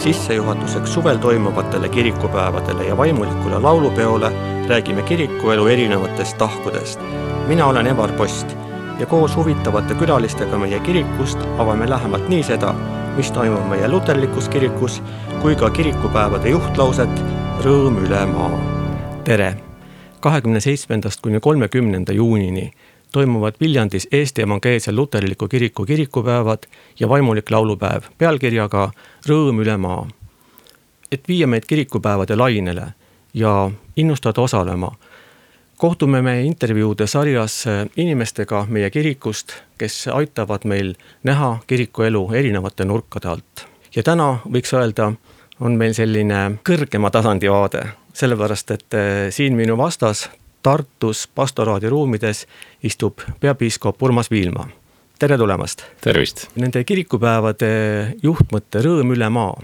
sissejuhatuseks suvel toimuvatele kirikupäevadele ja vaimulikule laulupeole räägime kirikuelu erinevatest tahkudest. Mina olen Evar Post ja koos huvitavate külalistega meie kirikust avame lähemalt nii seda, mis toimub meie luterlikus kirikus, kui ka kirikupäevade juhtlauset Rõõm üle maa. Tere! 27. kuni 30. juunini toimuvad Viljandis Eesti Evangeelse Luterliku Kiriku kirikupäevad ja vaimulik laulupäev pealkirjaga Rõõm üle maa. Et viia meid kirikupäevade lainele ja innustada osalema, kohtume me intervjuude sarjas inimestega meie kirikust, kes aitavad meil näha kirikuelu erinevate nurkade alt. Ja täna võiks öelda, on meil selline kõrgema tasandi vaade, sellepärast, et siin minu vastas Tartus pastoraadi ruumides istub peapiiskop Urmas Viilma. Tere tulemast! Tervist! Nende kirikupäevade juhtmõtte Rõõm üle maa.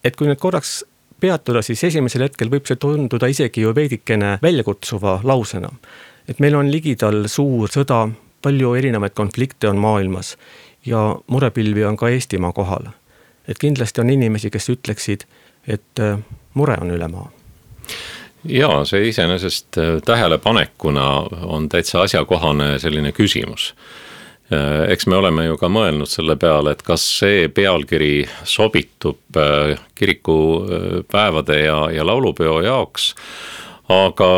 Et kui nüüd korraks peatuda, siis esimesel hetkel võib see tunduda isegi ju veidikene väljakutsuva lausena. Et meil on ligidal suur sõda, palju erinevaid konflikte on maailmas ja murepilvi on ka Eestimaa kohal. Et kindlasti on inimesi, kes ütleksid, et mure on üle maa. Jaa, see iseenesest tähelepanekuna on täitsa asjakohane selline küsimus. Eks me oleme ju ka mõelnud selle peale, et kas see pealkiri sobitub kirikupäevade ja laulupeo jaoks, aga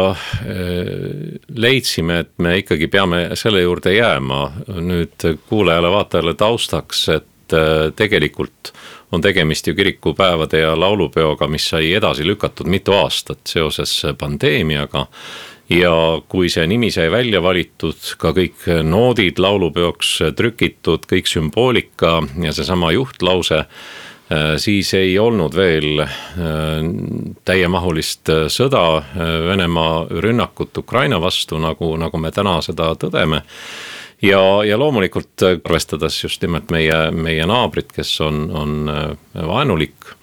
leidsime, et me ikkagi peame selle juurde jääma nüüd kuulajale vaatajale taustaks, et tegelikult on tegemist ju kirikupäevade ja laulupeoga, mis sai edasi lükatud mitu aastat seoses pandeemiaga. Ja kui see nimi sai välja valitud, ka kõik noodid laulupeoks trükitud, kõik sümboolika ja seesama juhtlause, siis ei olnud veel täiemahulist sõda, Venemaa rünnakut Ukraina vastu, nagu me täna seda tõdeme. Ja loomulikult arvestades just nimelt meie naabrit, kes on vaenulik,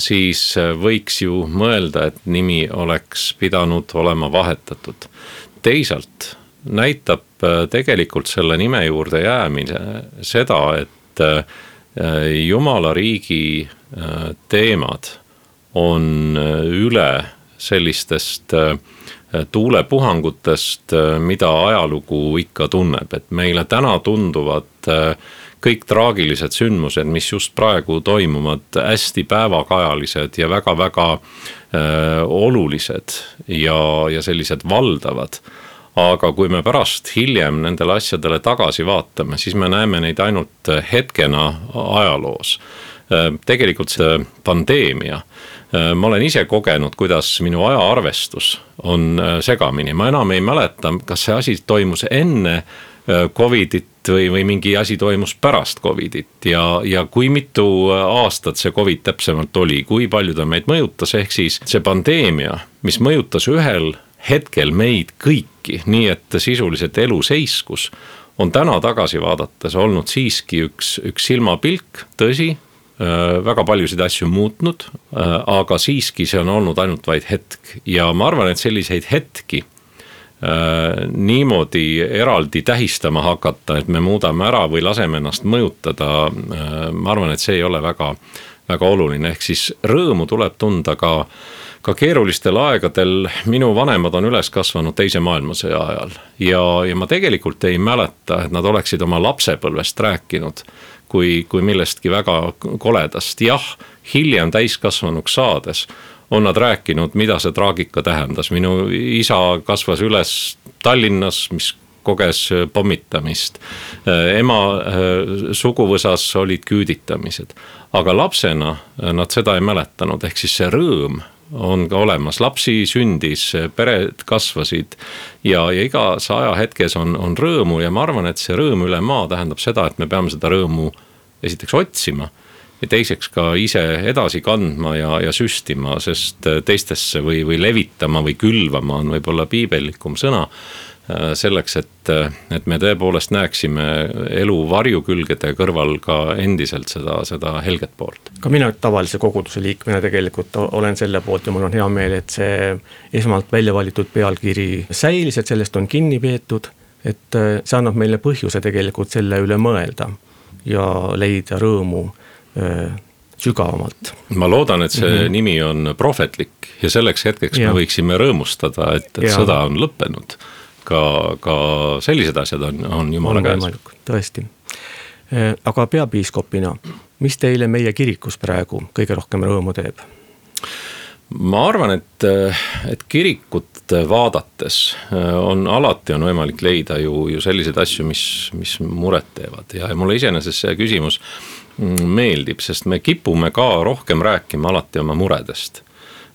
siis võiks ju mõelda, et nimi oleks pidanud olema vahetatud. Teisalt näitab tegelikult selle nime juurde jäämine seda, et Jumala riigi teemad on üle sellistest tuulepuhangutest, mida ajalugu ikka tunneb, et meile täna tunduvad kõik traagilised sündmused, mis just praegu toimuvad, hästi päevakajalised ja väga-väga olulised ja sellised valdavad. Aga kui me pärast hiljem nendele asjadele tagasi vaatame, siis me näeme neid ainult hetkena ajaloos. Tegelikult see pandeemia, ma olen ise kogenud, kuidas minu ajaarvestus on segamini. Ma enam ei mäleta, kas see asi toimus enne Covidit või mingi asi toimus pärast Covidit ja kui mitu aastat see Covid täpsemalt oli, kui palju ta meid mõjutas, ehk siis see pandeemia, mis mõjutas ühel hetkel meid kõiki, nii et sisuliselt elu seiskus, on täna tagasi vaadates olnud siiski üks silmapilk, tõsi, väga paljusid asju muutnud, aga siiski see on olnud ainult vaid hetk ja ma arvan, et selliseid hetki niimoodi eraldi tähistama hakata, et me muudame ära või laseme ennast mõjutada, ma arvan, et see ei ole väga, väga oluline, ehk siis rõõmu tuleb tunda ka keerulistel aegadel. Minu vanemad on üles kasvanud teise maailmasõja ajal ja ma tegelikult ei mäleta, et nad oleksid oma lapsepõlvest rääkinud kui millestki väga koledast. Jah, hiljem täiskasvanuks saades on nad rääkinud, mida see traagika tähendas. Minu isa kasvas üles Tallinnas, mis koges pommitamist. Ema suguvõsas olid küüditamised. Aga lapsena nad seda ei mäletanud, ehk siis see rõõm on ka olemas. Lapsi sündis, pered kasvasid ja igas ajahetkes on rõõmu ja ma arvan, et see rõõm üle maa tähendab seda, et me peame seda rõõmu esiteks otsima ja teiseks ka ise edasi kandma ja süstima, sest teistesse või levitama või külvama on võib-olla piibellikum sõna selleks, et me tõepoolest näeksime elu varjukülgede kõrval ka endiselt seda helget poolt. Ka mina tavalise koguduse liikmena tegelikult olen selle poolt ja mul on hea meel, et see esmalt välja valitud pealkiri säilis, et sellest on kinni peetud, et see annab meile põhjuse tegelikult selle üle mõelda ja leida rõõmu sügavamalt. Ma loodan, et see nimi on prohvetlik ja selleks hetkeks me võiksime rõõmustada, et sõda on lõppenud. Ka sellised asjad on Jumala käes. Tõesti. Aga peapiiskopina, mis teile meie kirikus praegu kõige rohkem rõõmu teeb? Ma arvan, et kirikut vaadates alati on võimalik leida ju selliseid asju, mis muret teevad ja mulle iseenesest see küsimus meeldib, sest me kipume ka rohkem rääkima alati oma muredest,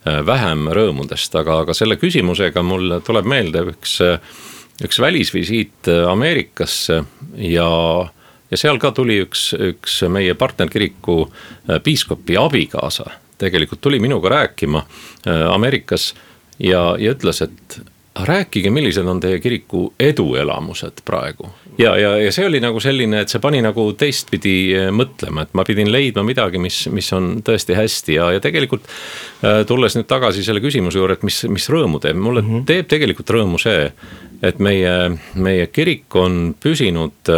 vähem rõõmudest, aga selle küsimusega mul tuleb meelde üks välisvisiit Ameerikasse ja seal ka tuli üks meie partnerkiriku piiskopi abikaasa, tegelikult tuli minuga rääkima Ameerikas ja ütles, et rääkige, millised on teie kiriku eduelamused praegu. Ja see oli nagu selline, et see pani nagu teistpidi mõtlema, et ma pidin leidma midagi, mis on tõesti hästi ja tegelikult tulles nüüd tagasi selle küsimuse juurde, et mis rõõmu teeb. Mulle teeb tegelikult rõõmu see, et meie kirik on püsinud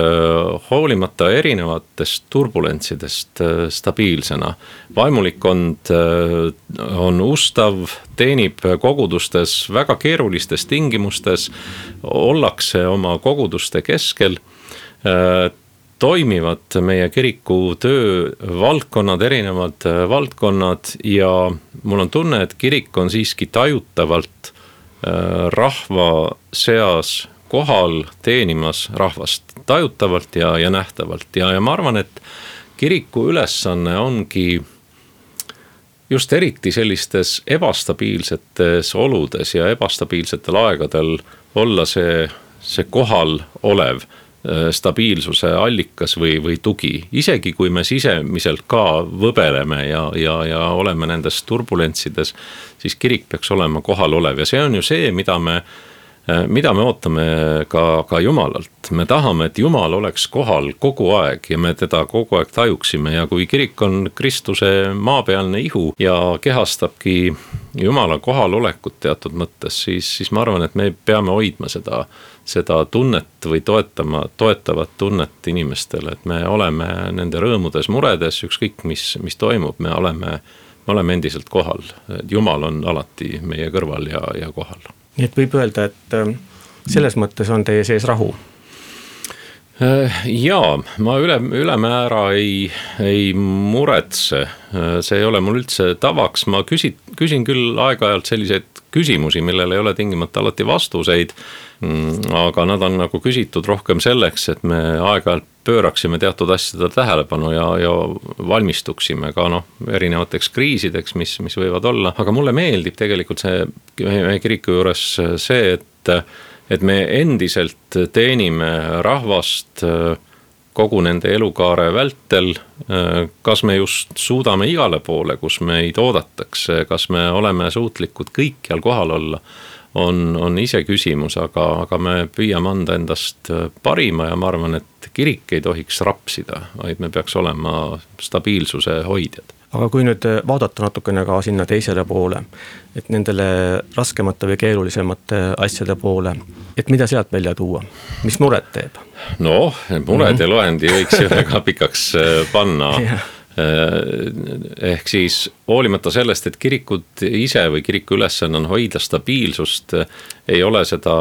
hoolimata erinevatest turbulentsidest stabiilsena. Vaimulikkond on ustav, teenib kogudustes väga keerulistes tingimustes, ollakse oma koguduste keskel, toimivad meie kiriku töövaldkonnad, erinevad valdkonnad ja mul on tunne, et kirik on siiski tajutavalt rahva seas kohal teenimas rahvast tajutavalt ja nähtavalt ja ma arvan, et kiriku ülesanne ongi just eriti sellistes ebastabiilsetes oludes ja ebastabiilsetel aegadel olla see kohal olev stabiilsuse allikas või tugi. Isegi kui me sisemiselt ka võbeleme ja oleme nendes turbulentsides, siis kirik peaks olema kohal olev ja see on ju see, mida me ootame ka Jumalalt. Me tahame, et Jumal oleks kohal kogu aeg ja me teda kogu aeg tajuksime ja kui kirik on Kristuse maapealne ihu ja kehastabki Jumala kohalolekut teatud mõttes, siis ma arvan, et me peame hoidma seda tunnet või toetavat tunnet inimestele, et me oleme nende rõõmudes, muredes, ükskõik mis toimub, me oleme endiselt kohal. Jumal on alati meie kõrval ja kohal. Nii et võib öelda, et selles mõttes on teie sees rahu? Jaa, ma ülemäära ei muretse, see ei ole mul üldse tavaks, ma küsin küll aeg-ajalt selliseid küsimusi, millel ei ole tingimata alati vastuseid, aga nad on nagu küsitud rohkem selleks, et me aeg-ajalt pööraksime teatud asjade tähelepanu ja valmistuksime ka erinevateks kriisideks, mis võivad olla, aga mulle meeldib tegelikult meie kiriku juures see, et me endiselt teenime rahvast kogu nende elukaare vältel, kas me just suudame igale poole, kus meid oodatakse, kas me oleme suutlikud kõikjal kohal olla, on ise küsimus, aga me püüame anda endast parima ja ma arvan, et kirik ei tohiks rapsida, vaid me peaks olema stabiilsuse hoidjad. Aga kui nüüd vaadata natukene ka sinna teisele poole, et nendele raskemate või keerulisemate asjade poole, et mida sealt välja tuua? Mis muret teeb? No, mured ja loendi võiks ju väga pikaks panna. Ehk siis hoolimata sellest, et kirikud ise või kiriku ülesanne on hoida stabiilsust, ei ole seda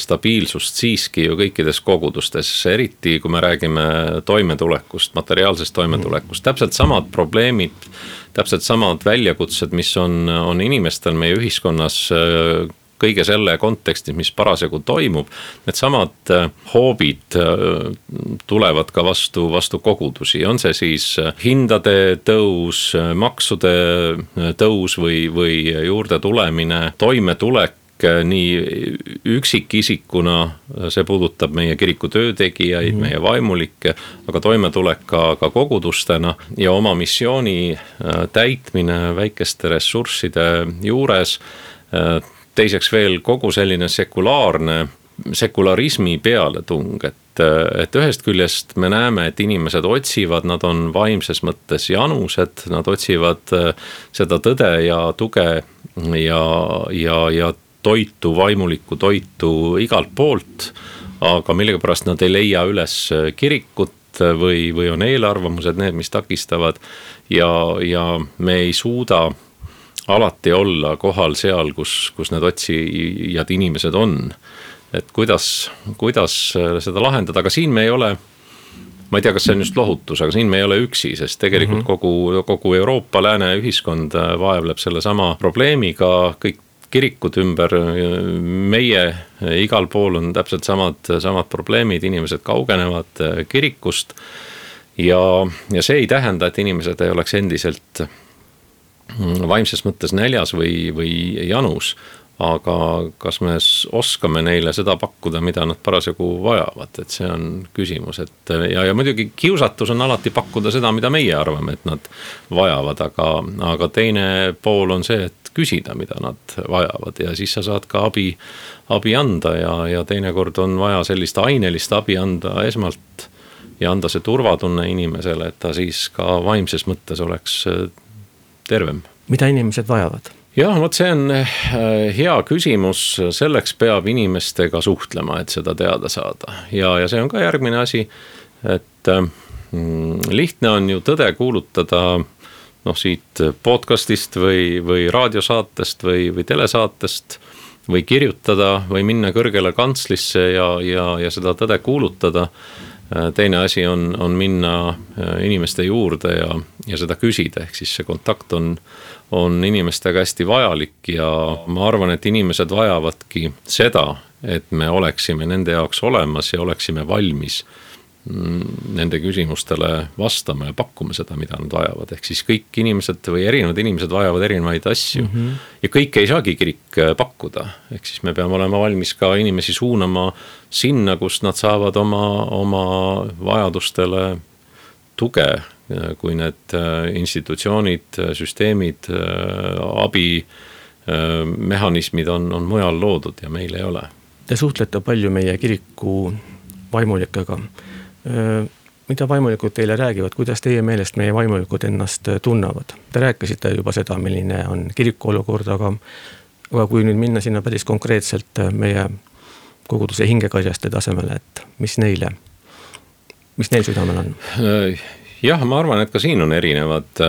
stabiilsust siiski ju kõikides kogudustes, eriti kui me räägime toimetulekust, materiaalsest toimetulekust, täpselt samad probleemid, täpselt samad väljakutsed, mis on inimestel meie ühiskonnas kõige selle kontekstis, mis parasjagu toimub, need samad hoobid tulevad ka vastu kogudusi. On see siis hindade tõus, maksude tõus või juurde tulemine, toimetulek nii üksikisikuna, see puudutab meie kiriku töötegijaid, meie vaimulikke, aga toimetulek ka kogudustena ja oma missiooni täitmine väikeste ressursside juures. Teiseks veel kogu selline sekularismi pealetung, et ühest küljest me näeme, et inimesed otsivad, nad on vaimses mõttes janused, nad otsivad seda tõde ja tuge ja toitu, vaimulikku toitu igalt poolt, aga millegipärast nad ei leia üles kirikut või on eelarvamused need, mis takistavad ja me ei suuda alati olla kohal seal, kus need otsijad inimesed on. Et kuidas seda lahendada, aga siin me ei ole, ma ei tea, kas see on just lohutus, aga siin me ei ole üksi, sest tegelikult kogu Euroopa lääne ühiskond vaevleb selle sama probleemiga, kõik kirikud ümber meie igal pool on täpselt samad probleemid, inimesed kaugenevad kirikust ja see ei tähenda, et inimesed ei oleks endiselt vaimses mõttes näljas või janus, aga kas me oskame neile seda pakkuda, mida nad parasjagu vajavad, et see on küsimus, et ja muidugi kiusatus on alati pakkuda seda, mida meie arvame, et nad vajavad, aga teine pool on see, et küsida, mida nad vajavad ja siis sa saad ka abi anda ja teinekord on vaja sellist ainelist abi anda esmalt ja anda see turvatunne inimesele, et ta siis ka vaimses mõttes oleks tervem. Mida inimesed vajavad? Jah, vot see on hea küsimus, selleks peab inimestega suhtlema, et seda teada saada ja see on ka järgmine asi, et lihtne on ju tõde kuulutada siit podcastist või raadiosaatest või telesaatest või kirjutada või minna kõrgele kantslisse ja seda tõde kuulutada. Teine asi on minna inimeste juurde ja seda küsida, ehk siis see kontakt on inimestega hästi vajalik ja ma arvan, et inimesed vajavadki seda, et me oleksime nende jaoks olemas ja oleksime valmis nende küsimustele vastama ja pakkuma seda, mida nad vajavad. Ehk siis kõik inimesed või erinevad inimesed vajavad erinevaid asju ja kõike ei saagi kirik pakkuda. Ehk siis me peame olema valmis ka inimesi suunama sinna, kus nad saavad oma vajadustele tuge, kui need institutsioonid, süsteemid, abimehhanismid on mujal loodud ja meil ei ole. Te suhtlete palju meie kiriku vaimulikega. Mida vaimulikud teile räägivad, kuidas teie meelest meie vaimulikud ennast tunnavad? Te rääkisite juba seda, milline on kiriku olukord, aga kui nüüd minna sinna päris konkreetselt meie koguduse hingekarjaste tasemele, et mis neil südamel on? Jah, ma arvan, et ka siin on erinevad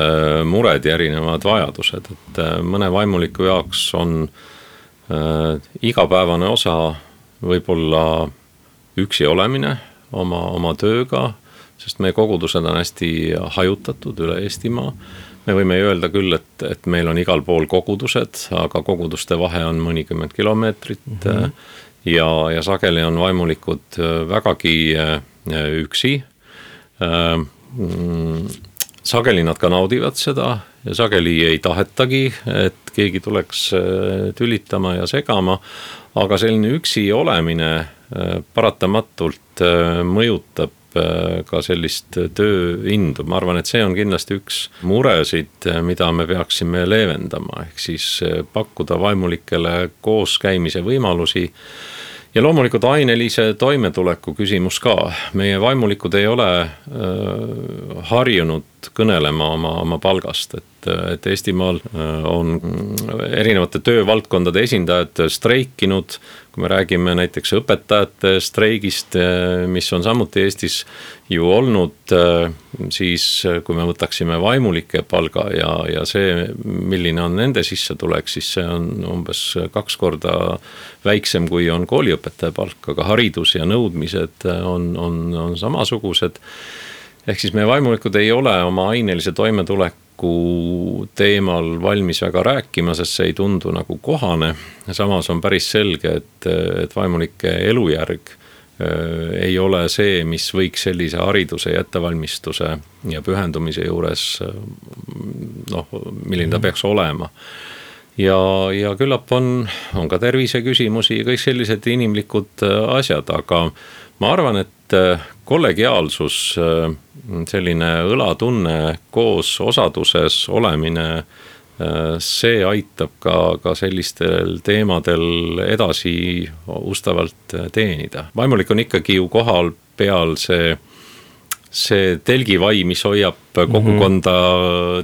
mured ja erinevad vajadused, et mõne vaimuliku jaoks on igapäevane osa võib-olla üksi olemine oma tööga, sest meie kogudused on hästi hajutatud üle Eestimaa. Me võime öelda küll, et meil on igal pool kogudused, aga koguduste vahe on mõnikümmend kilomeetrit ja sageli on vaimulikud vägagi üksi. Sageli nad ka naudivad seda ja sageli ei tahetagi, et keegi tuleks tülitama ja segama, aga selline üksi olemine paratamatult mõjutab ka sellist tööindu. Ma arvan, et see on kindlasti üks muresid, mida me peaksime leevendama, ehk siis pakkuda vaimulikele koos käimise võimalusi ja loomulikult ainelise toimetuleku küsimus ka. Meie vaimulikud ei ole harjunud kõnelema oma palgast, et Eestimaal on erinevate töövaldkondade esindajad streikinud, kui me räägime näiteks õpetajate streigist, mis on samuti Eestis ju olnud, siis kui me võtaksime vaimulike palga ja see, milline on nende sissetulek, siis see on umbes 2 korda väiksem kui on kooliõpetaja palk, aga haridus ja nõudmised on samasugused. Ehk siis meie vaimulikud ei ole oma ainelise toimetuleku teemal valmis väga rääkima, sest see ei tundu nagu kohane. Samas on päris selge, et vaimulike elujärg ei ole see, mis võiks sellise hariduse ja ettevalmistuse ja pühendumise juures, milline ta peaks olema. Ja küllap on ka tervise küsimusi ja kõik sellised inimlikud asjad, aga ma arvan, et kollegiaalsus, selline õlatunne koos osaduses olemine, see aitab ka sellistel teemadel edasi ustavalt teenida. Vaimulik on ikkagi ju kohal peal see see telgivai, mis hoiab kogukonda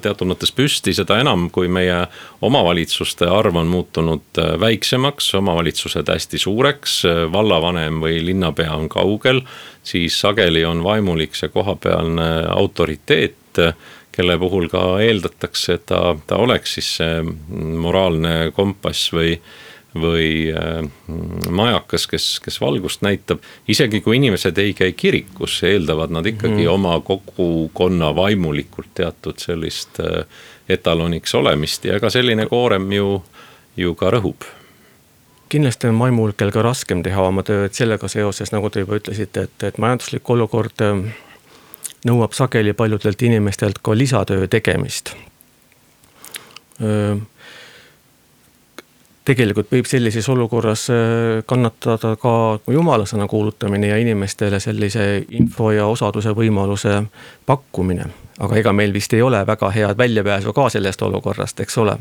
teatud mõttes püsti, seda enam, kui meie omavalitsuste arv on muutunud väiksemaks, omavalitsused hästi suureks, vallavanem või linnapea on kaugel, siis sageli on vaimulik see kohapealne autoriteet, kelle puhul ka eeldatakse, et ta oleks siis see moraalne kompass või majakas, kes valgust näitab. Isegi kui inimesed ei käi kirikus, eeldavad nad ikkagi oma kogukonna vaimulikult teatud sellist etaloniks olemist ja ka selline koorem ju ka rõhub. Kindlasti on vaimulikel ka raskem teha oma tööd sellega seoses, nagu te juba ütlesite, et majanduslik olukord nõuab sageli paljudelt inimestelt ka lisatöö tegemist. Tegelikult võib sellises olukorras kannatada ka jumalasõna kuulutamine ja inimestele sellise info ja osaduse võimaluse pakkumine. Aga ega meil vist ei ole väga head väljapääsu ka sellest olukorrast, eks ole?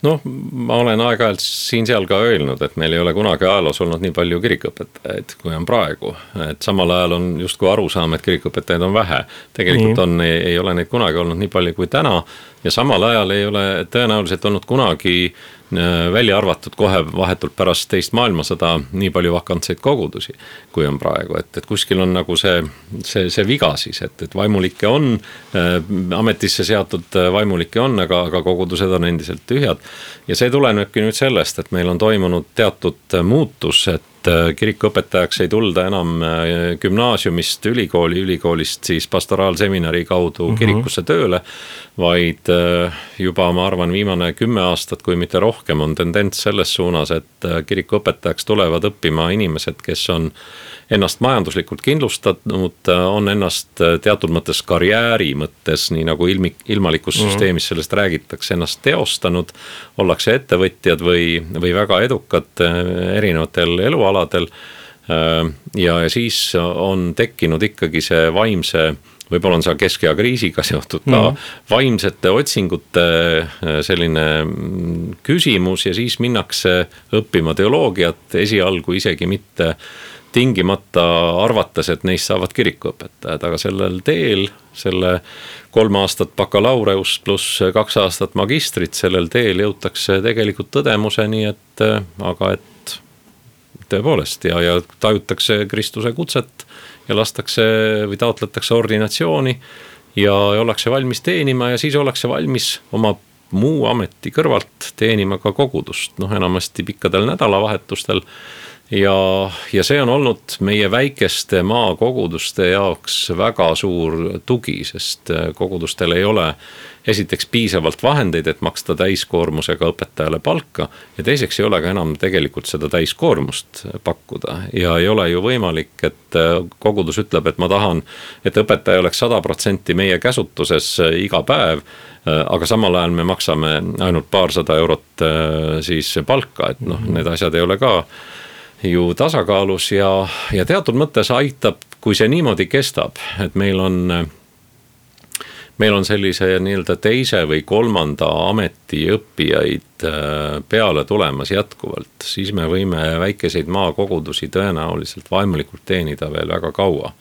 Noh, ma olen aeg-ajalt siin-seal ka öelnud, et meil ei ole kunagi ajaloos olnud nii palju kirikuõpetajaid, kui on praegu. Et samal ajal on justkui aru saama, et kirikuõpetajaid on vähe. Tegelikult ei ole neid kunagi olnud nii palju kui täna ja samal ajal ei ole tõenäoliselt olnud kunagi välja arvatud kohe vahetult pärast teist maailmasõda nii palju vakantseid kogudusi, kui on praegu. Et kuskil on nagu see viga siis, et vaimulikke on, ametisse seatud vaimulikke on, aga kogudused on endiselt tühjad. Ja see tulenebki nüüd sellest, et meil on toimunud teatud muutus, et kirikuõpetajaks ei tulda enam gümnaasiumist ülikoolist siis pastoraalseminari kaudu kirikusse tööle, vaid juba ma arvan viimane 10 aastat, kui mitte rohkem, on tendents selles suunas, et kirikuõpetajaks tulevad õppima inimesed, kes on ennast majanduslikult kindlustanud, on ennast teatud mõttes karjääri mõttes, nii nagu ilmalikus süsteemis sellest räägitakse, ennast teostanud, ollakse ettevõtjad või väga edukad erinevatel elualadel ja siis on tekkinud ikkagi see vaimse, võib-olla on see keskea kriisiga seotud ka vaimsete otsingute selline küsimus ja siis minnakse õppima teoloogiat esialgu isegi mitte tingimata arvates, et neist saavad kirikuõpetajad, aga sellel teel, selle 3 aastat bakalaureus pluss 2 aastat magistrit, sellel teel jõutakse tegelikult tõdemuseni, et tõepoolest ja tajutakse Kristuse kutset ja lastakse või taotletakse ordinatsiooni ja ollakse valmis teenima ja siis ollakse valmis oma muu ameti kõrvalt teenima ka kogudust, enamasti pikkadel nädalavahetustel. Ja see on olnud meie väikeste maakoguduste jaoks väga suur tugi, sest kogudustel ei ole esiteks piisavalt vahendeid, et maksta täiskoormusega õpetajale palka ja teiseks ei ole ka enam tegelikult seda täiskoormust pakkuda ja ei ole ju võimalik, et kogudus ütleb, et ma tahan, et õpetaja oleks 100% meie käsutuses iga päev, aga samal ajal me maksame ainult paarsada eurot siis palka, et need asjad ei ole ka ju tasakaalus ja teatud mõttes aitab, kui see niimoodi kestab, et meil on sellise nii-öelda teise või 3. ameti õppijaid peale tulemas jätkuvalt, siis me võime väikeseid maakogudusi tõenäoliselt vaimulikult teenida veel väga kaua.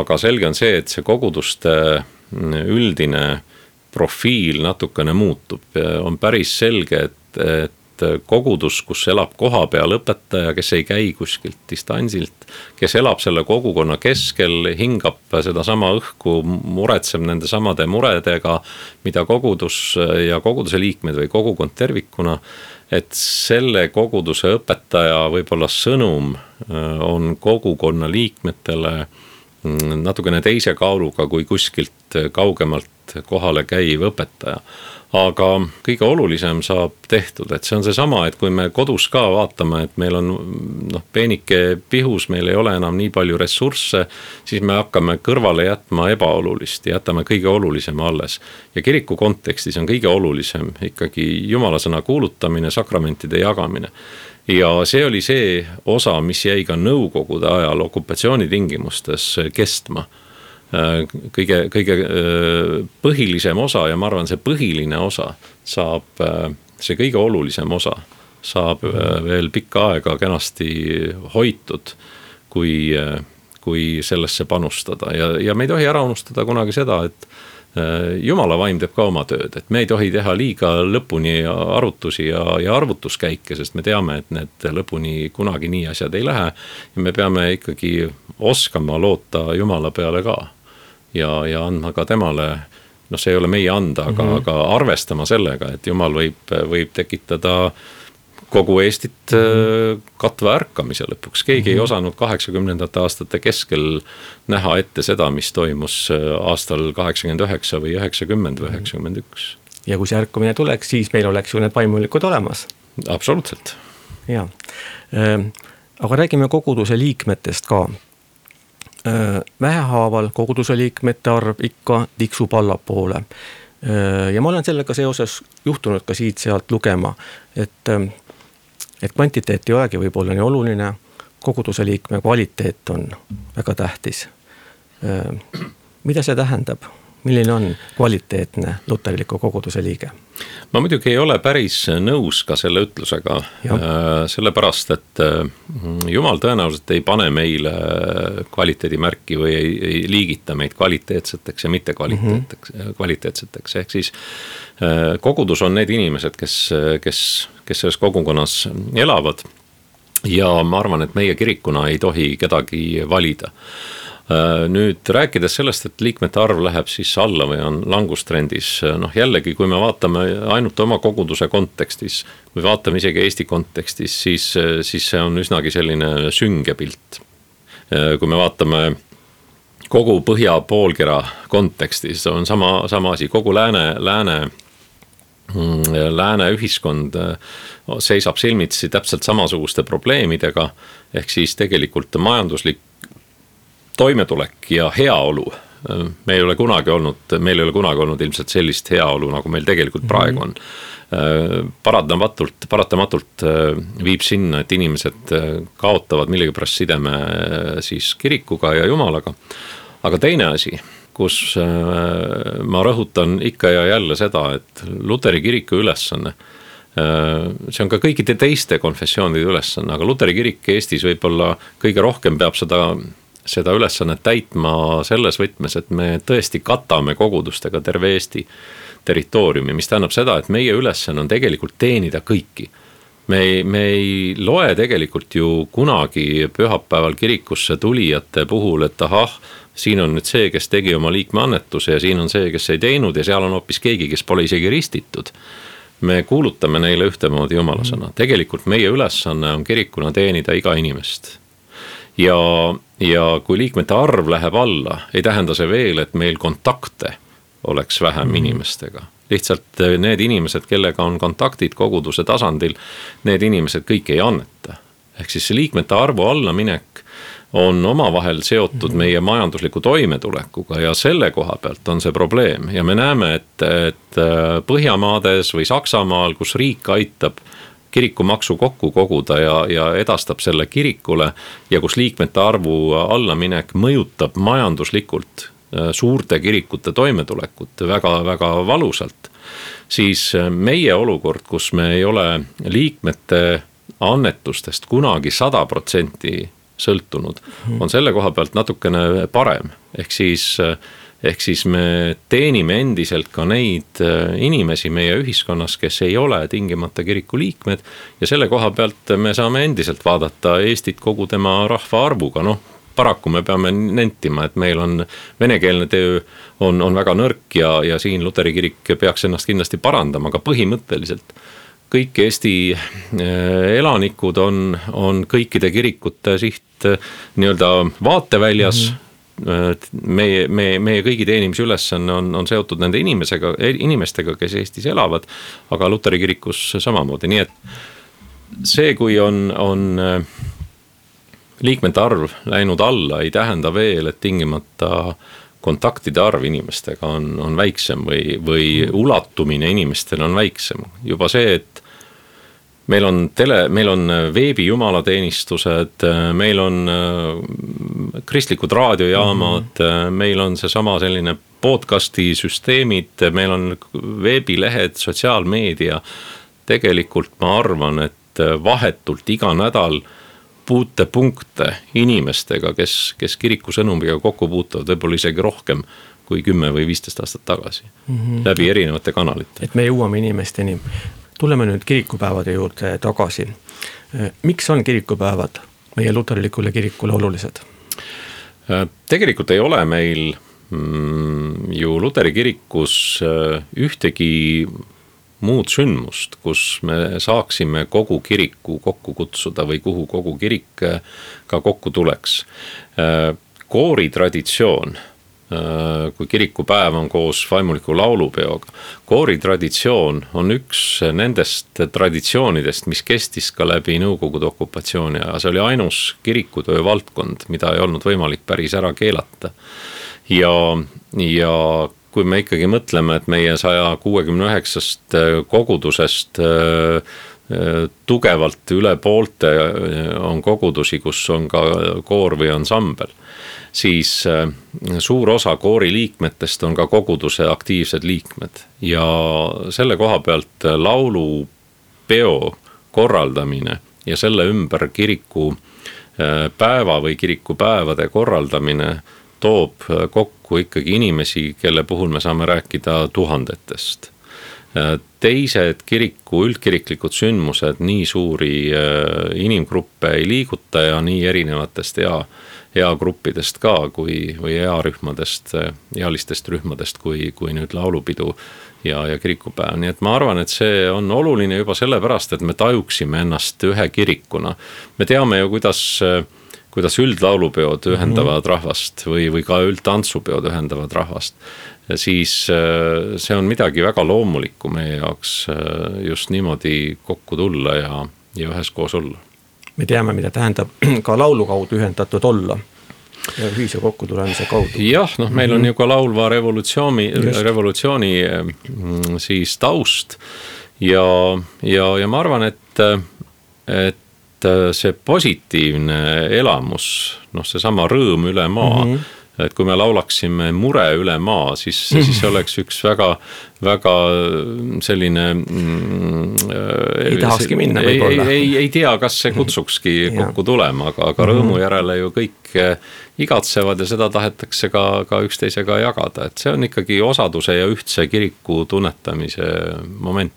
Aga selge on see, et see koguduste üldine profiil natukene muutub. On päris selge, et kogudus, kus elab koha peal õpetaja, kes ei käi kuskilt distantsilt, kes elab selle kogukonna keskel, hingab seda sama õhku, muretseb nende samade muredega, mida kogudus ja koguduse liikmed või kogukond tervikuna, et selle koguduse õpetaja võib-olla sõnum on kogukonna liikmetele natukene teise kaaluga kui kuskilt kaugemalt kohale käiv õpetaja. Aga kõige olulisem saab tehtud, et see on see sama, et kui me kodus ka vaatame, et meil on peenike pihus, meil ei ole enam nii palju ressursse, siis me hakkame kõrvale jätma ebaolulist ja jätame kõige olulisema alles. Ja kiriku kontekstis on kõige olulisem ikkagi jumalasõna kuulutamine, sakramentide jagamine. Ja see oli see osa, mis jäi ka nõukogude ajal okupatsioonitingimustes kestma. Kõige põhilisem osa ja ma arvan, see põhiline osa saab, see kõige olulisem osa saab veel pikka aega kenasti hoitud, kui kui sellesse panustada ja me ei tohi ära unustada kunagi seda, et Jumala vaim teeb ka oma tööd, et me ei tohi teha liiga lõpuni arvutusi ja arvutuskäike, sest me teame, et need lõpuni kunagi nii asjad ei lähe ja me peame ikkagi oskama loota Jumala peale ka ja andma ka temale, see ei ole meie anda, aga arvestama sellega, et Jumal võib tekitada kogu Eestit katva ärkamise lõpuks. Keegi ei osanud 80. aastate keskel näha ette seda, mis toimus aastal 89 või 90 või 91. Ja kui see ärkamine tuleks, siis meil oleks ju need vaimulikud olemas. Absoluutselt. Ja. Aga räägime koguduse liikmetest ka. Vähehaaval koguduse liikmete arv ikka tiksub allapoole. Ja ma olen sellega seoses juhtunud ka siit-sealt lugema, et kvantiteet ei olegi võib-olla nii oluline, koguduse liikme kvaliteet on väga tähtis. Mida see tähendab? Milline on kvaliteetne luterliku koguduse liige? Ma muidugi ei ole päris nõus ka selle ütlusega, sellepärast, et Jumal tõenäoliselt ei pane meile kvaliteedimärki või ei liigita meid kvaliteetseteks ja mitte kvaliteetseteks. Ehk siis kogudus on need inimesed, kes selles kogukonnas elavad ja ma arvan, et meie kirikuna ei tohi kedagi valida. Nüüd rääkides sellest, et liikmete arv läheb siis alla või on langustrendis, jällegi, kui me vaatame ainult oma koguduse kontekstis või vaatame isegi Eesti kontekstis, siis see on üsnagi selline sünge pilt. Kui me vaatame kogu Põhja poolkera kontekstis, on sama asi, kogu lääne ühiskond seisab silmitsi täpselt samasuguste probleemidega, ehk siis tegelikult majanduslik toimetulek ja heaolu. Meil ei ole kunagi olnud ilmselt sellist heaolu, nagu meil tegelikult praegu on. Paratamatult viib sinna, et inimesed kaotavad millegipärast sideme siis kirikuga ja Jumalaga. Aga teine asi, kus ma rõhutan ikka ja jälle seda, et Luteri kiriku ülesanne, see on ka kõikide teiste konfessioonide ülesanne, aga Luteri kirik Eestis võib-olla kõige rohkem peab seda ülesannet täitma selles võtmes, et me tõesti katame kogudustega terve Eesti territooriumi, mis tähendab seda, et meie ülesanne on tegelikult teenida kõiki. Me ei loe tegelikult ju kunagi pühapäeval kirikusse tulijate puhul, et siin on nüüd see, kes tegi oma liikmeannetuse ja siin on see, kes ei teinud ja seal on hoopis keegi, kes pole isegi ristitud. Me kuulutame neile ühtemoodi Jumala sõna. Tegelikult meie ülesanne on kirikuna teenida iga inimest. Ja kui liikmete arv läheb alla, ei tähenda see veel, et meil kontakte oleks vähem inimestega. Lihtsalt need inimesed, kellega on kontaktid koguduse tasandil, need inimesed kõik ei anneta. Ehk siis see liikmete arvu allaminek on omavahel seotud meie majandusliku toimetulekuga ja selle koha pealt on see probleem. Ja me näeme, et Põhjamaades või Saksamaal, kus riik aitab kirikumaksu kokku koguda ja edastab selle kirikule ja kus liikmete arvu allaminek mõjutab majanduslikult suurte kirikute toimetulekut väga-väga valusalt, siis meie olukord, kus me ei ole liikmete annetustest kunagi 100% sõltunud, on selle koha pealt natukene parem. Ehk siis me teenime endiselt ka neid inimesi meie ühiskonnas, kes ei ole tingimata kiriku liikmed ja selle koha pealt me saame endiselt vaadata Eestit kogu tema rahva arvuga. Paraku me peame nentima, et meil on venekeelne töö on väga nõrk ja siin Luteri kirik peaks ennast kindlasti parandama, aga põhimõtteliselt kõik Eesti elanikud on kõikide kirikute siht nii-öelda vaateväljas. Meie kõigi teenimise ülesanne on seotud nende inimestega, kes Eestis elavad, aga Luteri kirikus samamoodi. Nii et see, kui on liikmete arv läinud alla, ei tähenda veel, et tingimata kontaktide arv inimestega on väiksem või ulatumine inimestele on väiksem. Juba see, et meil on veebi jumalateenistused, meil on kristlikud raadiojaamad, meil on seesama selline podcasti süsteemid, meil on veebilehed, sotsiaalmeedia. Tegelikult ma arvan, et vahetult iga nädal kokkupuutepunkte inimestega, kes kiriku sõnumiga kokku puutuvad võib-olla isegi rohkem kui 10 või 15 aastat tagasi läbi erinevate kanalite. Et me jõuame inimesteni. Tuleme nüüd kirikupäevade juurde tagasi. Miks on kirikupäevad meie luterlikule kirikule olulised? Tegelikult ei ole meil ju Luteri kirikus ühtegi muud sündmust, kus me saaksime kogu kiriku kokku kutsuda või kuhu kogu kirik ka kokku tuleks. Kooritraditsioon, kui kirikupäev on koos vaimuliku laulupeoga. Kooritraditsioon on üks nendest traditsioonidest, mis kestis ka läbi Nõukogude okupatsiooni ja see oli ainus kirikutöö valdkond, mida ei olnud võimalik päris ära keelata. Ja kui me ikkagi mõtleme, et meie 169 kogudusest tugevalt üle poolte on kogudusi, kus on ka koor või ansambel, siis suur osa koori liikmetest on ka koguduse aktiivsed liikmed ja selle koha pealt laulupeo korraldamine ja selle ümber kiriku päeva või kirikupäevade korraldamine toob kokku ikkagi inimesi, kelle puhul me saame rääkida tuhandetest. Teised kiriku üldkiriklikud sündmused nii suuri inimgruppe ei liiguta ja nii erinevatest eagruppidest ka või earühmadest, ealistest rühmadest kui nüüd laulupidu ja kirikupäev. Nii et ma arvan, et see on oluline juba sellepärast, et me tajuksime ennast ühe kirikuna. Me teame ju, kuidas üldlaulupeod ühendavad rahvast või ka üldtantsupeod ühendavad rahvast, siis see on midagi väga loomulikku meie jaoks just niimoodi kokku tulla ja üheskoos olla. Me teame, mida tähendab ka laulu kaudu ühendatud olla ja ühise kokkutulemise kaudu. Jah, meil on ju ka laulva revolutsiooni siis taust ja ma arvan, et see positiivne elamus, see sama rõõm üle maa, et kui me laulaksime mure üle maa, siis oleks üks väga selline ei tahakski minna võib-olla. Ei tea, kas see kutsukski kokku tulema, aga rõõmu järele ju kõik igatsevad ja seda tahetakse ka üksteisega jagada, et see on ikkagi osaduse ja ühtse kiriku tunnetamise moment.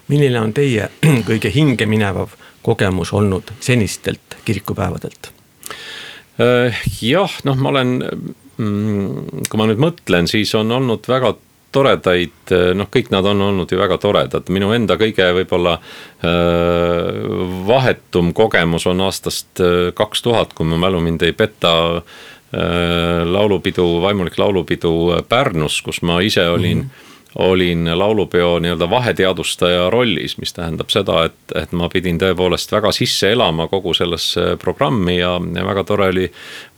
Milline on teie kõige hinge minevav kogemus olnud senistelt kirikupäevadelt? Jah, ma olen, kui ma nüüd mõtlen, siis on olnud väga toredaid, kõik nad on olnud ju väga toredad. Minu enda kõige võib-olla vahetum kogemus on aastast 2000, kui ma mälu mind ei peta, vaimulik laulupidu Pärnus, kus ma ise olin laulupeo nii-öelda vaheteadustaja rollis, mis tähendab seda, et ma pidin tõepoolest väga sisse elama kogu sellesse programmi ja väga tore oli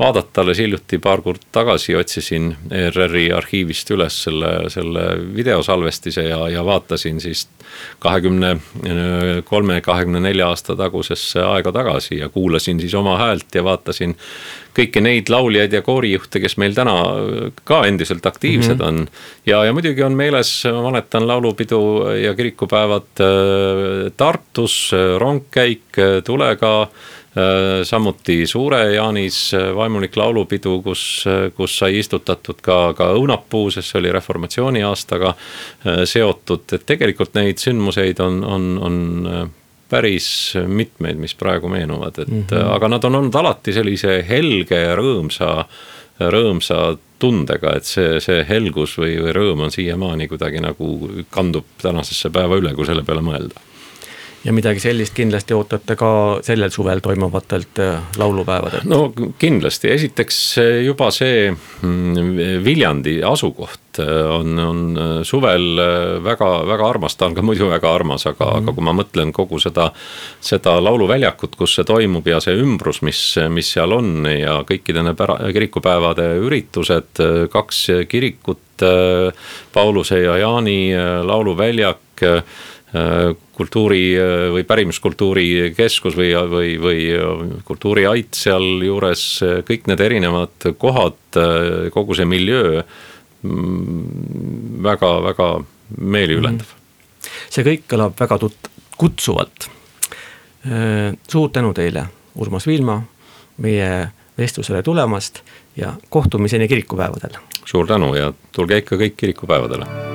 vaadata, alles hiljuti paar kord tagasi otsisin ERR-i arhiivist üles selle videosalvestise ja vaatasin siis 23-24 aasta tagusesse aega tagasi ja kuulasin siis oma häält ja vaatasin kõiki neid lauljaid ja koorijuhte, kes meil täna ka endiselt aktiivsed on. Ja muidugi on meeles, ma mäletan laulupidu ja kirikupäevad Tartus, rongkäik Tulega, samuti Suure-Jaanis vaimulik laulupidu, kus sai istutatud ka õunapuu, sest see oli reformatsiooni aastaga seotud. Et tegelikult neid sündmuseid on päris mitmeid, mis praegu meenuvad, aga nad on olnud alati sellise helge ja rõõmsa tundega, et see helgus või rõõm on siiamaani kuidagi nagu kandub tänasesse päeva üle, kui selle peale mõelda. Ja midagi sellist kindlasti ootate ka sellel suvel toimuvatelt laulupäevadelt? No kindlasti. Esiteks juba see Viljandi asukoht on suvel väga armas, ta on ka muidu väga armas, aga kui ma mõtlen kogu seda lauluväljakut, kus see toimub ja see ümbrus, mis seal on ja kõikide kirikupäevade üritused, 2 kirikut, Pauluse ja Jaani lauluväljak, kultuuri või pärimuskultuuri keskus või kultuuriait seal juures, kõik need erinevad kohad, kogu see miljöö väga meeliülendav. See kõik kõlab väga kutsuvalt. Suur tänu teile, Urmas Viilma, meie vestlusele tulemast ja kohtumiseni kirikupäevadel. Suur tänu ja tulge ikka kõik kirikupäevadele.